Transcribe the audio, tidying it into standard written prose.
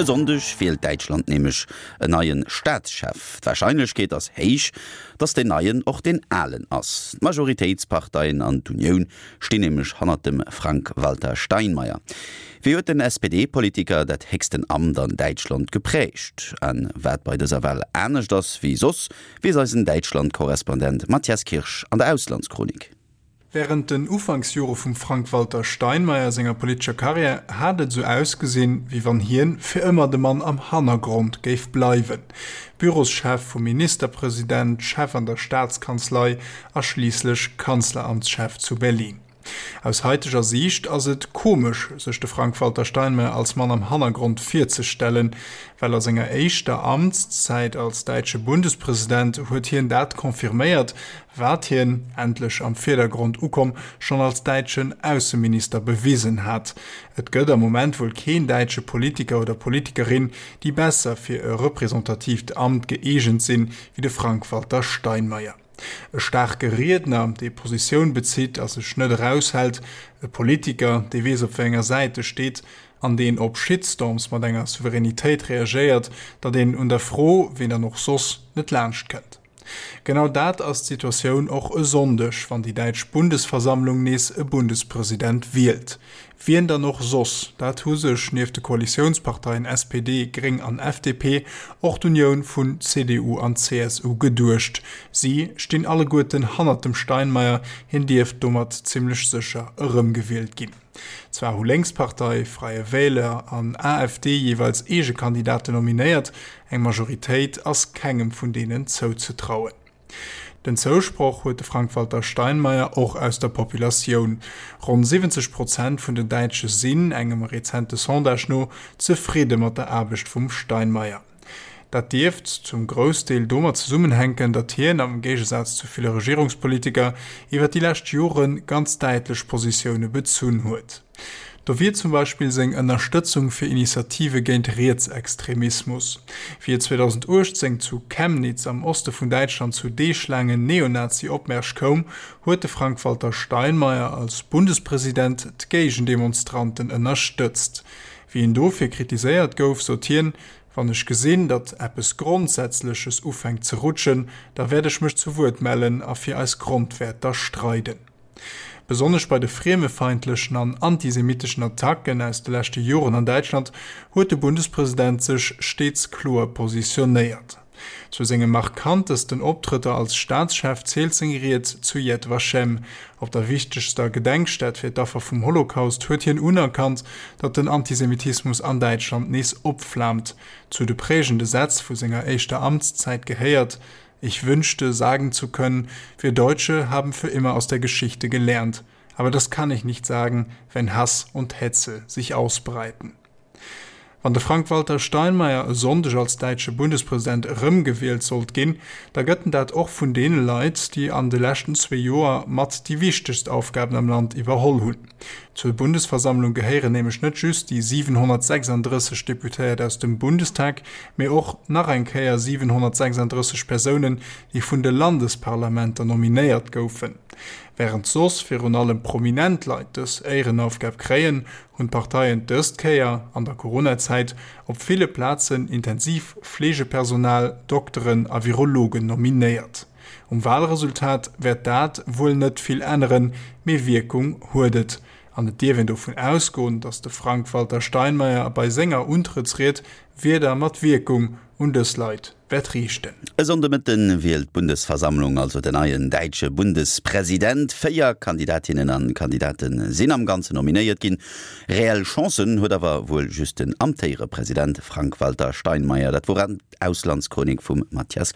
E Sonndeg wielt Däitschland nämlech en neie Staatschef. D'Warscheinlechkeet ass héich, datt deen Neien och deen Alen ass. D'Majoritéitsparteien an d'Unioun stinn nämlech hannert dem Frank-Walter Steinmeier. Wéi huet den SPD-Politiker dat héchsten Amt an Däitschland geprägt? A wat bei dëser Wal anescht ass wéi soss, weess eisen Däitschland-Korrespondent Mathias Kirsch an der Auslandschronik. Wärend den Ufanksjore vum Frank-Walter Steinmeier senger politescher Karriär hat et esou ausgesinn, wéi wann hien fir ëmmer de Mann am Hannergrond géif bleiwen, Büroschef vum Ministerpresident, Chef an der Staatskanzlei a schliisslech Kanzleramtschef zu Berlin. Aus haiteger Siicht ass et komesch, sech de Frank-Walter Steinmeier als Mann am Hannergrond virzestellen, well a senger éischter Amtszäit als däitsche Bundespresident huet hien dat confirméiert, wat hien, endlech am Virdergrond ukomm, schonn als däitschen Ausseminister bewisen hat. Et gëtt am Moment wuel keen däitsche Politiker oder Politikerin, déi besser fir e representatiivt Amt gëeegent sinn, wéi de Frank-Walter Steinmeier. E staarke Riedner, dee Positioun bezitt a sech net eraushält, e Politiker, dee weess op wéi enger Säit e steet an deen op Shitstorms mat enger Souveränitéit reagéiert, datt een un der Fro, ween dann och soss, net laanscht kënnt. Genau dat ass d'Situatioun och e Sonndeg, wann déi däitsch Bundesversammlung nees e Bundespresident wielt. Wien dann och soss? Dat hu sech nieft de Koalitiounsparteien SPD, Gréng an FDP och d'Unioun vun CDU an CSU geduecht. Si stinn alleguerten hannert dem Steinmeier, hien dierft domat zimmlech sécher erëmgewielt ginn. Zwar hu Lénkspartei, Freie Wähler an AfD jeeweils eege Kandidaten nominéiert, eng Majoritéit ass kengem vun deenen zouzetrauen. Den Zousproch huet de Frank-Walter Steinmeier och aus der Populatioun. Ronn 70 Prozent vun den Däitsche sinn, engem rezente Sondage no, zefridde mat der Aarbecht vum Steinmeier. Dat dierft zum Groussdeel domat zesummenhänken, datt hien, am Géigesaz zu ville Regierungspolitiker, iwwer déi lescht Jore ganz däitlech Positioune bezunn huet. Do wier zum Beispill seng Ënnerstëtzung fir Initiative géint Rietsextremismus. Wéi et 2018 zu Chemnitz am Oste vun Däitschland zu deeglaangen Neonazi-Opmärsch koum, huet de Frank-Walter Steinmeier als Bundespresident d'Géigendemonstranten ënnerstëtzt. Wéi en dofir kritiséiert gouf, sot hien, Wann ech gesinn, datt eppes Grondsätzleches ufänkt ze rutschen, da wäert ech mech zu Wuert mellen a fir eis Grondwäerter streiden. Besonnesch bei de friemefeindlechen an antisemitteschen Attacken aus de leschte Joren an Däitschland huet de Bundespresident sech steets kloer positionéiert. Zu senge markantesten Optrëtter als Staatschef zielt seng Ried zu Yad Vashem. Op der wichtegster Gedenkstätt fir d'Affer vum Holocaust huet hien unerkannt, datt den Antisemitismus an Däitschland nees opflaamt. Zu de prägende Sätz vu senger éischter Amtszäit gehéiert, Ich wünschte, sagen zu können, wir Deutsche haben für immer aus der Geschichte gelernt. Aber das kann ich nicht sagen, wenn Hass und Hetze sich ausbreiten. Wann de Frank-Walter Steinmeier e Sonndeg als däitsche Bundespresident erëmgewielt sollt ginn, da gëtt en dat och vun deene Leit, déi an de leschten zwee Joer mat déi wichtegst Aufgaben am Land iwwerholl hunn. Zur Bundesversammlung gehéieren nämlech net just déi 736 Deputéiert aus dem Bundestag, mee och nach eng Kéier 736 Persounen, déi vun de Landesparlamenter nominéiert goufen. Wärend soss virun allem prominent Leit dës Éierenaufgab kréien, hunn d'Parteien dëst Kéier an der Coronazäit op ville Plazen intensiv Fleegepersonal, Dokteren a Virologen nominéiert. Um Walresultat wäert dat wuel net vill änneren, mee Wierkung huet et. An et dierf een dovun ausgoen, datt de Frank-Walter Steinmeier bei senger Untrëttsried Wierder mat Wierkung un dës Leit wäert riichten. E Sonndemëtten wielt d'Bundesversammlung also den neien däitsche Bundespresident. 4 Kandidatinnen an Kandidate sinn am Ganzen nominéiert ginn. Reell Chancen huet awer wuel just den amtéiere President Frank-Walter Steinmeier. Dat wor d'Auslandschronik vum Mathias.